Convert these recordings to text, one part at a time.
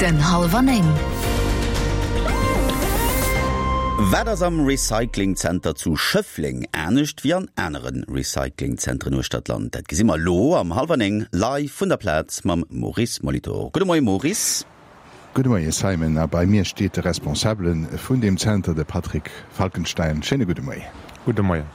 Den Hallwer 9. Wat ass am Recyclingzenter zu Schëffleng anescht wéi an anere Recyclingzentren uechter d'Land? Dat gesi mer elo am Hallwer 9 live vun der Plaz mam Maurice Molitor. Gudde Moie Maurice. Gudde Moie Simon, a bei mir steet de Responsabele vun deem Zenter, de Patrick Falkenstein. Schéine gudde Moien. Gudde Moien.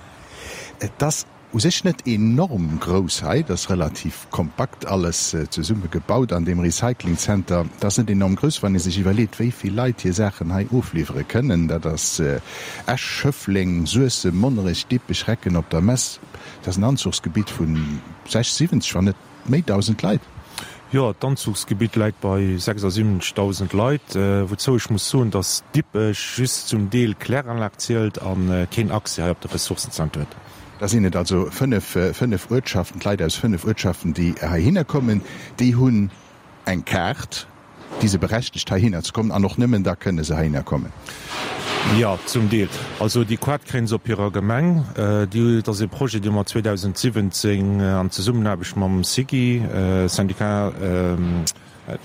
Et ass u sech net enorm grouss hei, et ass relativ kompakt alles zesumme gebaut an deem Recyclingzenter. Et ass net enorm grouss, wann ee sech iwwerleet, wéi vill Leit hir Saachen hei ofliwwere kënnen. Dat ass Esch, Schëffleng, Suessem, Monnerech, Dippech, Recken op der Mess. Dat ass en Anzuchsgebitt vu 60, 70, wann net. Méi 1.000 Leit? Jo, d'Anzuchsgebitt läit bei 76.000 Leit, wouzou ech muss soen, datt Dippech just zum Deel Kläranlag zielt a keen Accès hei op de Ressourcenzenter huet. Da sinn et also fënnef, fënnef Uertschaften, d'Leit aus fënnef Uertschaften, déi heihinner kommen. Déi hunn eng Kaart. Déi se berechtegt heihinner ze kommen an och nëmmen da kënne se heihinner kommen. Jo, zum Deel. Also déi Quart kréien se op hirer Gemeng. Déi, dat ass e Projet, dee mer 2017 an Zesummenaarbecht mam SIGI, Syndicat de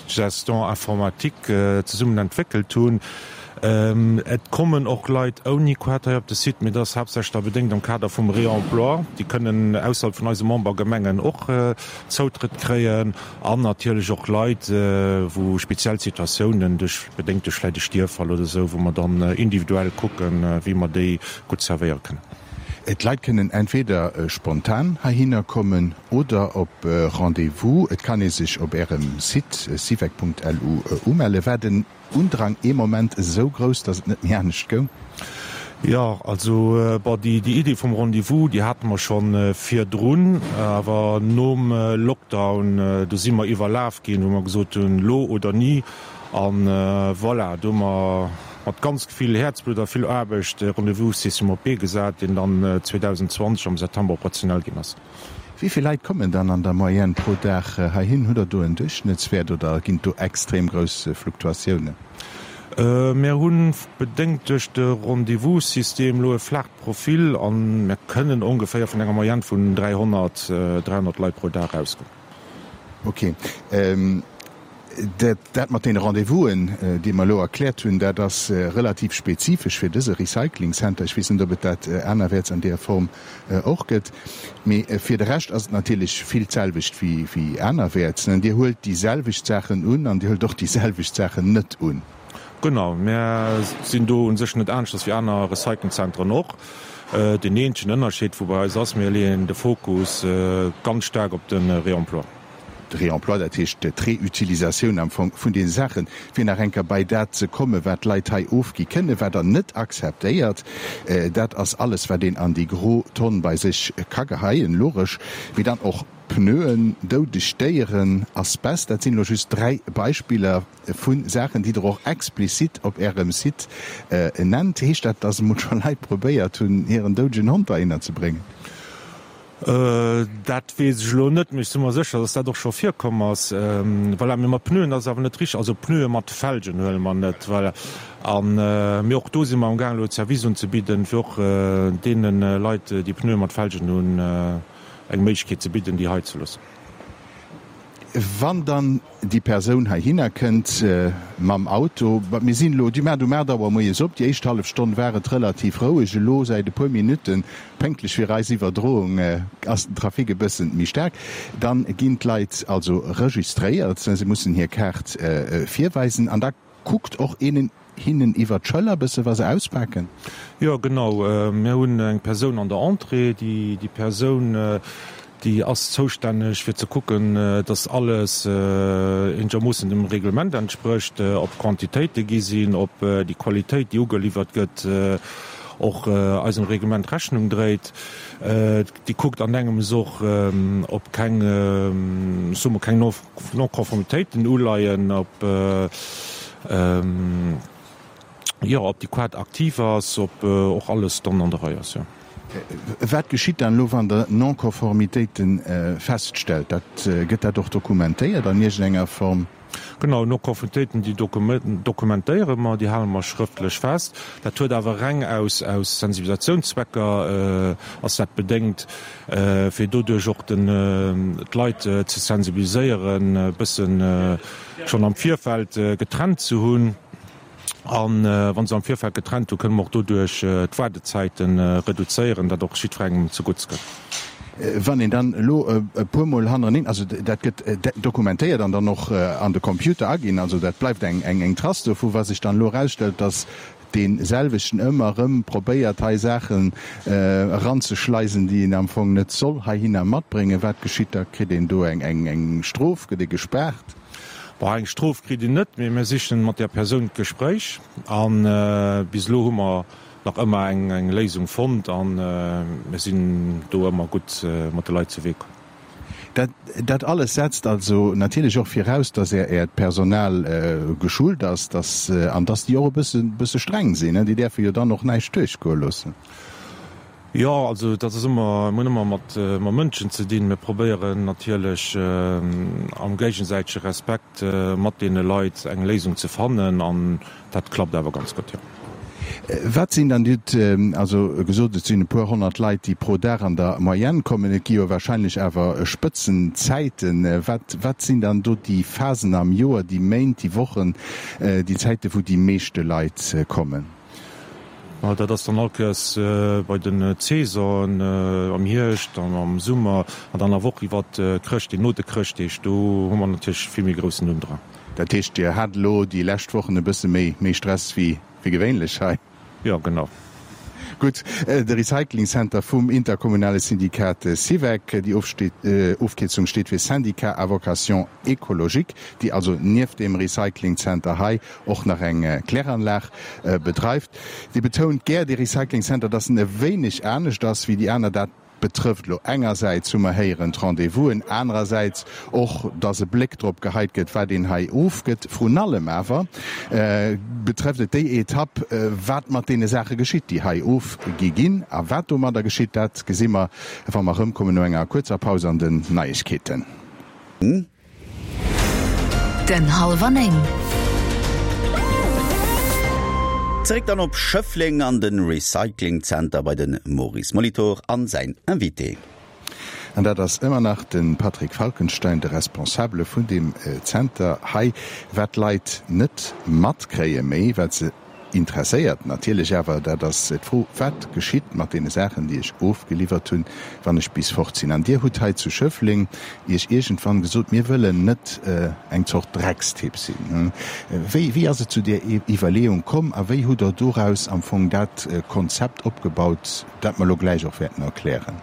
gestion informatique, zesummen entwéckelt hunn. Et kommen och Leit ouni Quart hei op de Site, mee dat ass haaptsächlech da bedéngt am Kader vum Réemploi. Déi kënnen ausserhalb vun eise Membergemengen och Zoutrëtt kréien. An natierlech och Leit, wou speziell Situatiounen, duerch, bedéngt duerch vläicht e Stierffall oder esou, wou mer dann individuell kucken, wéi mer déi gutt servéiere kënnen. D'Leit kënnen entweder spontan heihinner kommen oder op Rendez-vous. Et kann ee sech op Ärem Site syvec.lu umelle. War den Undrang ee Moment esou grouss, datt et net méi anescht goung? Jo, also bon, déi Idee vum Rendez-vous, déi hate mer scho virdrun, awer nom Lockdown, do si mer iwwerlaf ginn, wou mer gesot hunn, lo oder ni. A voilà, do hu mer mat ganz vill Häerzblutt a vill Aarbecht e Rendez-vous-System op d'Bee gesat, deen dann 2020 am September operationell ginn ass. Wéi vill Leit kommen dann an der Moyenne pro Dag heihin? Hutt Der do en Duerchschnëttswäert oder ginn et do extrem grouss Fluktuatiounen? Mir hu bedéngt duerch de Rendez-vous-System elo e flaacht Profil a mir kënnen ongeféier vun enger Moyenne vun 300, 300 Leit pro Dag ausgoen. Ok. Dat mat deene Rendez-vousen, déi mer elo erkläert hunn, dat ass relativ spezifesch fir dëse Recycling Center. Ech weess net, ob et dat anerwäerts an deeër Form och gëtt. Mee fir de Rescht ass et natierlech vill d'selwecht wéi anerwäerts. Dir huelt déi selwecht Saachen un an Dir huelt och déi selwecht Saachen net un. Genau, mir sinn do u sech net aneschters wéi aner Recyclingzentren och. Deen eenzegen Ënnerscheed, wou bei eis ass, mir leeën de Fokus ganz staark op de Réemploi. De Réemploi, dat heescht d'Reutilisatioun am Fong vun deene Saachen, fir nach eng Kéier bei dat ze kommen, wat d'Leit hei ofgi kënnen, wat Der net akzeptéiert. Dat ass alles, wat een an déi gro Tonn bei sech ka geheien, logesch, mee dann och Pneuen, doudeg Déieren, Asbest, dat sinn elo just 3 Beispiller vu Saachen, déi Der och explizit op Ärem Site nennt. Heescht dat, dass emol scho Leit probéiert hunn, hiren doudegen Hond heihinner ze bréngen? Dat weess ech elo net, mee ech si mer sécher, dass dat och scho virkomm ass. Voilà, mee mat Pneuen ass et awer net richteg. Also Pneue mat Felgen huele mer net. Voilà. A mee och do si mer amgaang elo e Service unzebidden, fir och deene Leit, déi Pneue mat Felgen hunn, eng Méiglechkeet ze bidden, déi hei ze loossen. Wann dann déi Persoun heihinner kënnt mam Auto, mir sinn elo, déi maacht um 8 Auer moies op, déi éischt hallef Stonn war et relativ roueg, elo säit e puer Minutten, pénktlech fir eis Iwwerdroung, ass den Trafic e bëssen méi staark, dann ginn d'Leit also registréiert, se mussen hir Kaart virweisen an da kuckt och een hinnen iwwer d'Schëller bësse wa se auspaken? Jo, genau. Mir hunn eng Persoun an der Entrée. Déi Persoun, déi ass zoustänneg fir ze kucken, dass alles eenegermoossen dem Reglement entsprécht, ob d'Quantitéite gi sinn, ob déi Qualitéit, déi ugeliwwert gëtt, och eisem Reglement Rechnung dréit. Déi kuckt an engems och, ob keng, soe mer, keng Non-Conformitéiten uleien, ob jo, ob déi Quart aktiv ass, ob och alles dann an der Rei ass, jo. Wat geschitt dann elo, wann Der Non-Konformitéite feststellt? Dat, gëtt dat och dokumentéiert an iergendenger Form? Genau, Non-Konformitéiten, déi dokumentéiere mer, déi hale mer schrëftlech fest. Dat huet awer reng aus Sensibilisationszwecker ass dat bedéngt, fir doduerch och d'Leit ze sensibiliséieren, e bëssen schonn am Virfeld getrennt ze hunn. A wa se am Virfeld getrennt hunn, kënne mer och doduerch d'Waardezäite reduzéieren, dat och jiddwerengem zegutts kënnt. Wann een dann elo e puermol hannereneen, also dat gëtt dokumentéiert an dann och an de Computer aginn, also dat bleift eng Trace dovu, wa sech dann elo erausstellt, datt dee selwechten ëmmer erëm probéiert hei Saachen eranzeschleisen, déi een am Fong net soll heihinner matbréngen, wat geschitt da? Kritt een do eng Strof? Gëtt ee gespaart? Bon, eng Strof kritt een net, mee mir sichen mat där Persoun d'Gespréich a bis elo hu mer nach ëmmer eng Léisung fonnt a mir sinn do ëmmer gutt mat de Leit zu Wee komm. Dat, dat alles setzt also natierlech och viraus, dass Är, Äert Personal geschult ass, dass, an dass déi och e bësse, bësse streng sinn, déi däerfe jo dann och näischt duerchgoe loossen. Jo, also dat ass ëmmer, mir hunn ëmmer mat Mënschen ze dinn. Mir probéieren natierlech am géigesäitege Respekt mat deene Leit eng Léisung ze fannen an dat klappt awer ganz gutt, jo. Wat sinn dann, Dir hutt also gesot, et sinn e puer 100 Leit, déi pro Dag an der Moyenne kommen. Et gi jo wahrscheinlech awer Spëtzenzäiten. Wat, wat sinn dann do déi Phasen am Joer, déi Méint, déi Wochen, déi Zäite wou déi meeschte Leit kommen? Ma dat ass dann all Kéiers bei den Saisonen, am Hierscht an am Summer an dann awer och iwwer Chrëschtdeeg, no de Chrëschtdeeg, do hu mer natierlech vill méi groussen Undrang. Dat heescht, Dir hat elo déi lescht Wochen e bësse méi méi Stress wéi wéi gewéinlech hei? Jo, genau. Gutt, de Recycling Center vum interkommunale Syndikat SIVEC, déi Ofkierzung steet fir Syndicat à vocation écologique, déi also nieft deem Recycling Center hei och nach eng Kläranlag bedreift. Dee betount gär, dee Recycling Center, datt en e wéineg anescht ass wéi déi aner. Dat betrëfft elo engersäits, hu mer héieren, d'Rendez-vousen, anerersäits och, datt e Bléck drop geheit gëtt, wat een hei ofgëtt. Vrun allem awer betrëfft et déi Etapp, wat mat deene Saache geschitt, déi hei ofgi ginn. A wat domadder geschitt, dat gesi mer, wa mer erëmkommen no enger kuerzer Paus an den Neiegkeeten. Den Hallwer 9. Zeréck dann op Schëffleng an de Recycling Center bei de Maurice Molitor an säin Invité. An dat ass ëmmer nach de Patrick Falkenstein, de Responsabele vun deem Zenter hei. Wat d'Leit net matkréie méi, wat se Interesséiert natierlech awer, dat ass d'Fro, Wat geschitt mat deene Saachen, déi ech ofgeliwwert hunn, wann ech bis fort sinn? An Dir hutt hei zu Schëffleng Iech iergendwann gesot, Mir wëllen net eng Zort Dreckstipp sinn. Wéi, wéi ass et zu där Iwwerleeung komm a wéi hutt Der doraus am Fong dat Konzept opgebaut, dat mer elo gläich och wäerten erklären?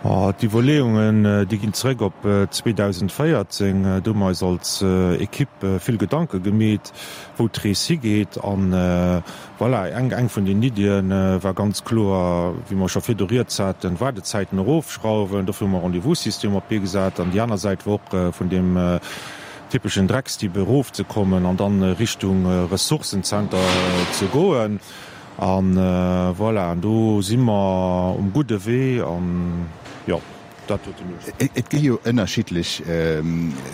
D'Iwwerleeungen, déi ginn zeréck op 2014. Do hu mer eis als Equipe vill Gedanke gemeet, wou d'Rees higeet. An voilà, eng eng vun den Iddie war ganz kloer, wéi mer scho virdu rieds haten, d'Waardezäiten erofschrauwen. Dofir hu mer e Rendez-vous-System op d'Bee gesat. An déi aner Säit war och vun deem typeschen Dreckstipp erofzekommen an dann Richtung Ressourcenzenter ze goen. An voilà, an do si mer um gudde Wee an jo, dat huet den Ursprong. Et gi jo ënnerschiddlech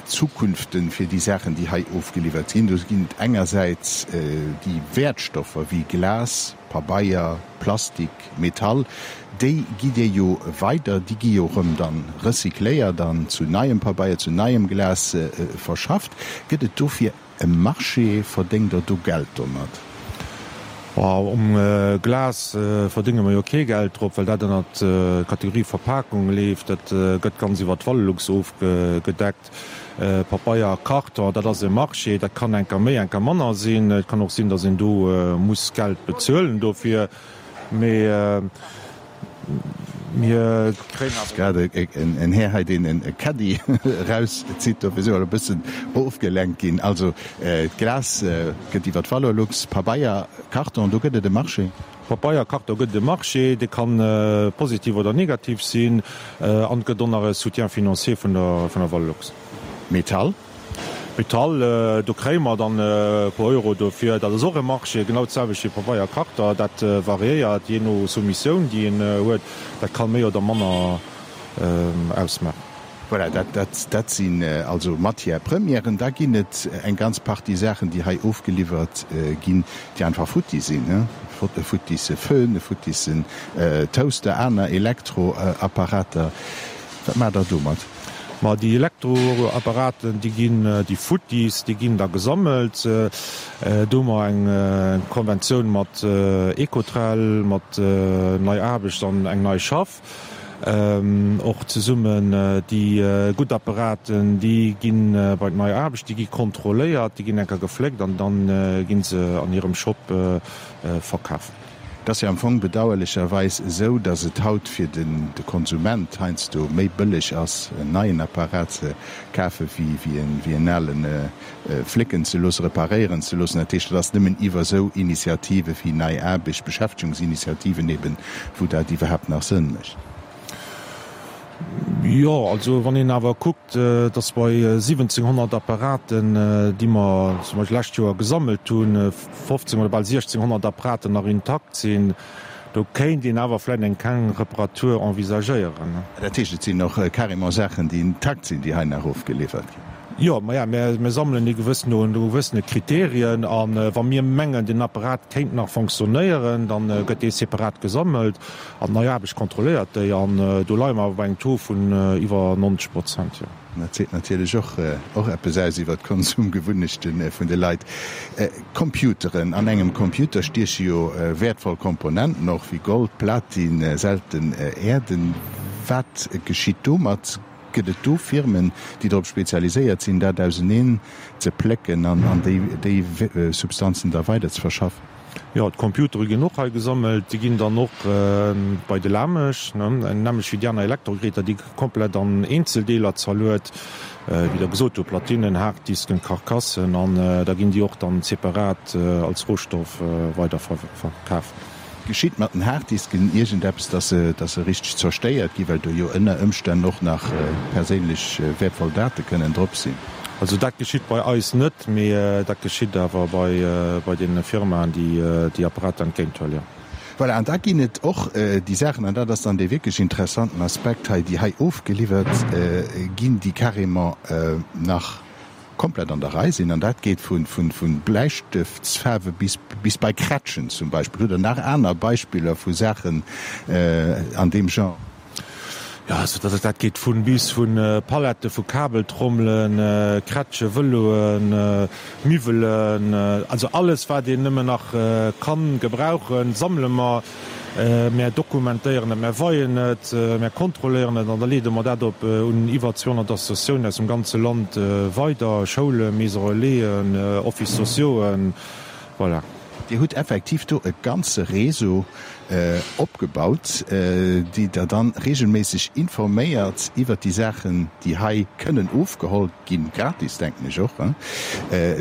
Zukunften fir déi Saachen, déi hei ofgeliwwert ginn. Do ginn et engersäits déi Wäertstoffer wéi Glas, Pabeier, Plastik, Metall, déi gitt Dir jo weider, déi gi jo erëm dann recycléiert an zu neiem Pabeier, zu neiem Glas verschafft. Gëtt et dofir E Marché, verdéngt der do Geld domat? Um Glas verdénge mer jo kee Geld drop, well dat ënnert d'Kategorie Verpakung leeft. Dat gëtt ganz iwwer d'Valelux ofgedeckt. Pabeier a Karton, dat ass e Marché, dat kann enker méi, enker manner sinn. Et kann och sinn, datt een do muss Geld bezuelen dofir. Mee mir kréien awer. Grad en Här hei, deen e Caddie erauszitt, dofir si mer elo e bëssen ofgelenkt ginn. Also d'Glas gëtt iwwer d'Valorlux, Pabeier, Karton, do gëtt et e Marché. Pabeier, Karton gëtt et e Marché, dee ka positiv oder negativ sinn an et gëtt och nach e Soutien financier vun der Valorlux. Metall? Metall, do kréie mer dann e puer Euro dofir. Dat ass och e Marché, genau d'selwecht wéi Pabeier a Karter. Dat variéiert jee no Soumissioun, déi een huet. Dat ka méi oder manner ausmaachen. Voilà, dat, dat sinn also Matières premièren. Da ginn et eng ganz Partie Saachen, déi hei ofgeliwwert ginn, déi einfach futti sinn, e futtisse Föhn, e futtissen Toaster, aner Elektroapparater. Wat maacht Der domat? Ma déi Elektroapparaten, déi ginn, déi futtis, déi ginn da gesammelt. Do hu mer eng Konventioun mat Ecotrel, mat Nei Aarbecht an eng Nei Schaff. Och zesummen déi gutt Apparaten, déi gi bei d'Nei Aarbecht, déi gi kontrolléiert, déi ginn eng Kéier gefléckt an da gi se an hirem Shop verkaf. Et ass jo am Fong bedauerlecherweis esou, datt et haut fir de Konsument heiansdo méi bëlleg ass, en neien Apparat ze kafe wéi en alen flécken ze loossen, reparéieren ze loossen. Dat heescht, et ass nëmmen iwwer esou Initiative wéi Nei Aarbecht, Beschäftegungsinitiativen eben, wou dat iwwerhaapt nach Sënn mécht. Jo, also wann een awer kuckt, datt bei 1.700 Apparaten, déi mer zum Beispill d'lescht Joer gesammelt hunn, 15 oder bal 1.600 Apparaten nach intakt sinn, Do kéint een awer vläit eng kleng Reparatur envisagéieren. Dat heescht, et sinn och carrément Saachen, déi intakt sinn, déi hei nach ofgeliwwert ginn? Jo, maja, mir sammelen déi gewëss no gewëssene Kriterien. A wa mir mengen, den Apparat kéint nach fonctionnéieren, da gëtt dee separat gesammelt an d'Nei Aarbecht kontrolléiert déi. An do leie mer awer bei engem Taux vun iwwer 90 Prozent, jo. Dat seet natierlech och och eppes aus iwwer d'Konsumgewunnechte vun de Leit. Computeren, An engem Computer stieche jo wäertvoll Komponenten och wéi Gold, Platin, selten Äerden. Wat geschitt domat? Gëtt et do Firmen, déi drop spezialiséiert sinn, dat auseneen ze plécken an déi Substanzen da weider ze verschaffen? Jo, d'Computere ginn och hei gesammelt. Déi ginn dann och bei de Lamesch, nämlech wéi déi aner Elektrogeräter, déi komplett an Eenzeldeeler zerluet, wéi Der gesot hutt, Platinen, Harddisken, Karkassen, an da ginn déi och dann separat als Rohstoff weider verkaf. Geschitt mat den Harddisken iergendeppes, dass se, dass se richteg zerstéiert ginn, well do jo ënner Ëmstänn och nach perséinlech wäertvoll Date kënnen drop sinn? Also dat geschitt bei eis net, mee dat geschitt awer bei, bei deene Firmaen, déi déi Apparater entgéint huelen, jo. Voilà, an da ginn et och déi Saachen, an dat ass dann dee wierklech interessanten Aspekt hei, déi hei ofgeliwwert ginn, déi carrément nach komplett an der Rei sinn, an dat geet vu Bläistëftsfaarwe bis bei Krätschen zum Beispill. Hutt Der nach aner Beispiller vu Saachen an deem Genre? Jo, also dat dat geet vu bis, vu Palette, vu Kabeltrommelen, Krätsche, Vëloen, Miwwelen, also alles wat een nëmmen nach kann gebrauchen, sammele mer. Mär dokumentéieren et, mär weien et, mär kontrolléieren et an da leede mer dat op un iwwer 200 Associatiounen aus dem ganze Land weider, Schoulen, Maisons Relaisen, Offices sociauxen, voilà. Dir hutt effektiv do e ganze Réseau opgebaut, déi Der dann regelméisseg informéiert iwwert déi Saachen, déi hei kënnen ofgeholl ginn, gratis, denken ech och.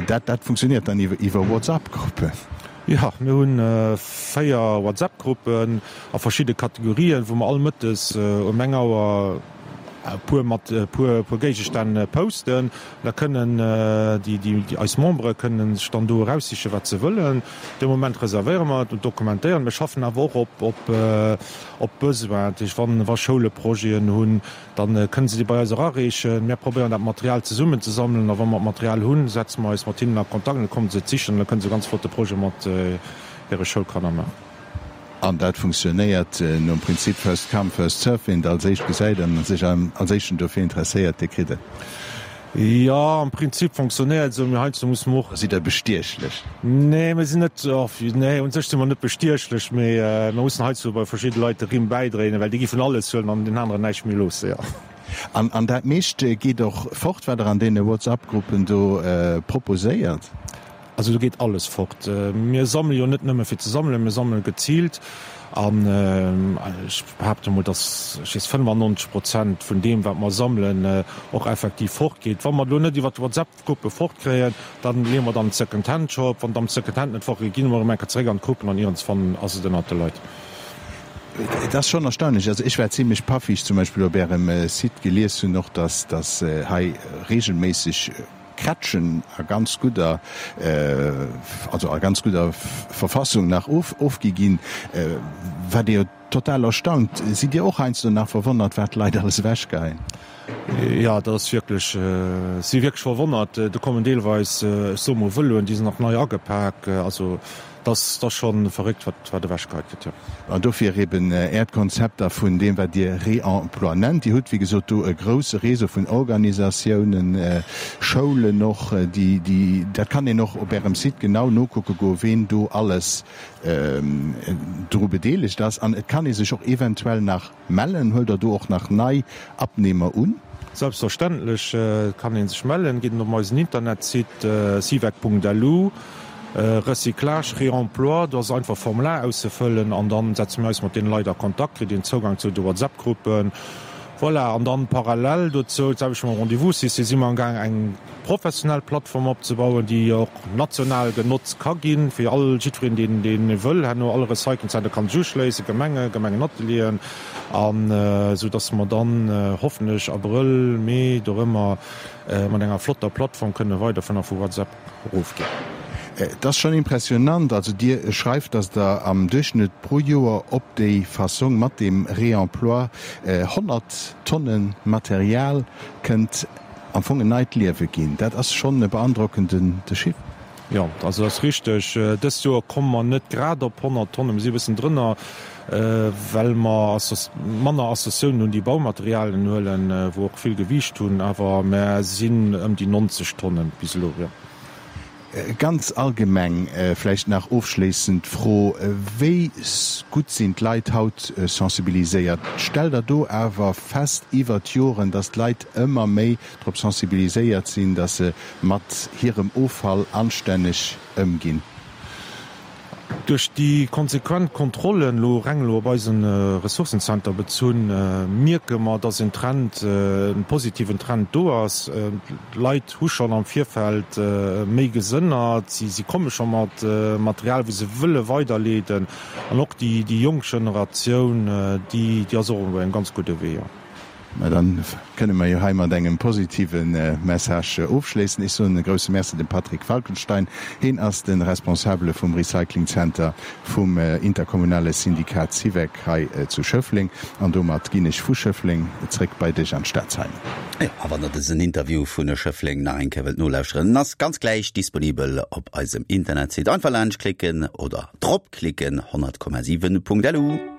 Dat, dat funktioniert dann iwwer WhatsApp-Gruppen? Jo, mir hunn 4 WhatsApp-Gruppen a verschidde Kategorien, wou mer all mëttes um eng Auer e puer mat e puer puer Géigestänn posten. Da kënnen déi déi eis Membere kënnen sech dann do eraussichen, wat se wëllen. Dee Moment reservéiere mer et und dokumentéieren. Mir schaffen awer och op op op Besoin. Dat heescht, wann wa Schoule Projeten hunn, Dann kënnen se déi bei eis erareechen. Mär probéieren dat Material zesummen ze sammelen a wa mer d'Material hunn, setze mer eis mat hinnen a Kontakt an da kommen se et sichen an da kënnen se e ganz flotte Projet mat hire Schoulkanner maachen. An dat funktionéiert nom Prinzip first come, first serve, wien et als éischt gesäit an sech als éischten dofir interesséiert, dee kritt et. Jo, am Prinzip fonctionnéiert esou, mee heiansdo musse mer och. Sidd Der bestiechlech? Nee, mir sinn net, nee, un sech si mer net bestiechlech, mee mir mussen heiansdo bei verschidde Leit de Rimm bäidréinen, well déi gi vun alles huelen an den aneren näischt méi loosse, jo. An, an dat meescht geet och fort, wat Der an deene WhatsApp-Gruppen do proposéiert? Also do geet alles fort. Mir sammele jo net nëmme fir ze sammelen, mir sammele geziilt. An ech behaapte mol, datt, ech weess, 95 Prozent vun deem, wat mer sammelen, och effektiv fortgeet. Wa mer et elo net iwwer d'WhatsApp-Gruppe fortkréien, da leeë mer et an den Second-Hand-Shop. Wann et am Second-Hand net fortgeet, gi mer erëm eng Kéier zeréck an d'Gruppen an iergendswann ass et ënnert de Leit. Et ass schonn erstaunlech. Also ech war zimlech paff, wéi ech zum Beispill op Ärem Site gelies hunn och, datt hei reegelméisseg. Krätschen a ganz gudder, also a ganz gudder Verfassung nach ofgi ginn, wat ee jo total erstaunt. Sidd Dir och heiansdo nach verwonnert, wat d'Leit alles ewechgeheien? Jo, dat ass wierklech, ech si wierklech verwonnert. Do kommen deelweis, ech soe mol, Vëloen, déi sinn nach nei agepak. Also dat ass, dat ass scho verréckt, wat, wat ewechgeheit gëtt, jo. An dofir eben Äert Konzept da vun deem, wat Dir Réemploi nennt. Dir hutt, wéi gesot, do e grouse Réseau vun Organisatiounen, Schoulen och, déi, déi, dat kann een och op Ärem Site genau nokucke goen, ween do alles dru bedeelegt ass. An et kann ee sech och eventuell nach Mellen? Huelt der do och nach nei Abnehmer un? Selbstverständlech kann een sech mellen. Geet een op eisen Internetsite sivec.lu, Recyclage, Réemploi, do ass einfach Formular auszefëllen an dann setze mir eis mat deene Leit a Kontakt, kritt een Zougang zu de WhatsApp-Gruppen. Voilà, an dann parallel dozou, d'selwecht mam Rendez-vous-System, si mer amgaang eng professionell Plattform opzebauen, déi och national genotzt ka ginn, fir all, jiddwereen, deen, deen e wëll, herno all Recyclingzenter kann sech uschléissen, Gemengen, Gemengenatelieren, an esou dass mer dann hoffentlech Abrëll, Mee, dorëmmer mat enger flotter Plattform kënne weiderfueren a vu WhatsApp erofginn. Et ass schonn impressionant. Also Dir schreift, dass Der am Duerchschnëtt pro Joer op déi Fassong mat deem Réemploi 100 Tonne Material kënnt am Fong en neit Liewe ginn. Dat ass schonn e beandrockende Chiffre. Jo, also dat ass richteg. Dëst Joer komme mer net grad op 100 Tonnen, mir si e bëssen drënner, well mer manner Associatiounen hunn, déi Baumaterialien huelen, wou och vill Gewiicht hunn. Awer mer sinn ëm déi 90 Tonnen bis elo, jo. Ganz allgemeng vläicht nach ofschléissend d'Fro, Wéi gutt sinn d'Leit haut sensibiliséiert? Stellt Der do awer fest iwwert d'Joren, datt d'Leit ëmmer méi drop sensibiliséiert sinn, datt se mat hirem Offall anstänneg ëmginn? Duerch déi konsequent Kontrollen, elo reng elo op eisen Ressourcencenter bezunn, mierke mer, dass en Trend, e positiven Trend do ass. D'Leit hu schonn am Virfeld méi gesënnert, si komme scho mat Material, wou se wëlle weiderleeden. An och déi jonk Generatioun, déi ass och op engem ganz gudde Wee. Mä dann kënne mer jo hei mat engem positive Message ofschléissen. Ech soen e grousse Merci dem Patrick Falkenstein. Heen ass de Responsabele vum Recycling Center vum interkommunale Syndikat SIVEC hei zu Schëffleng. An domat ginn ech vu Schëffleng zréck bei dech an d'Stad, Simon. Jo, a wann der dësen Interview vun Schëffleng nach eng Kéier wëllt nolauschteren, en ass ganz gläich disponibel op eisem Internetsite. Einfach laanscht klicken oder drop klicken, 100,7.lu.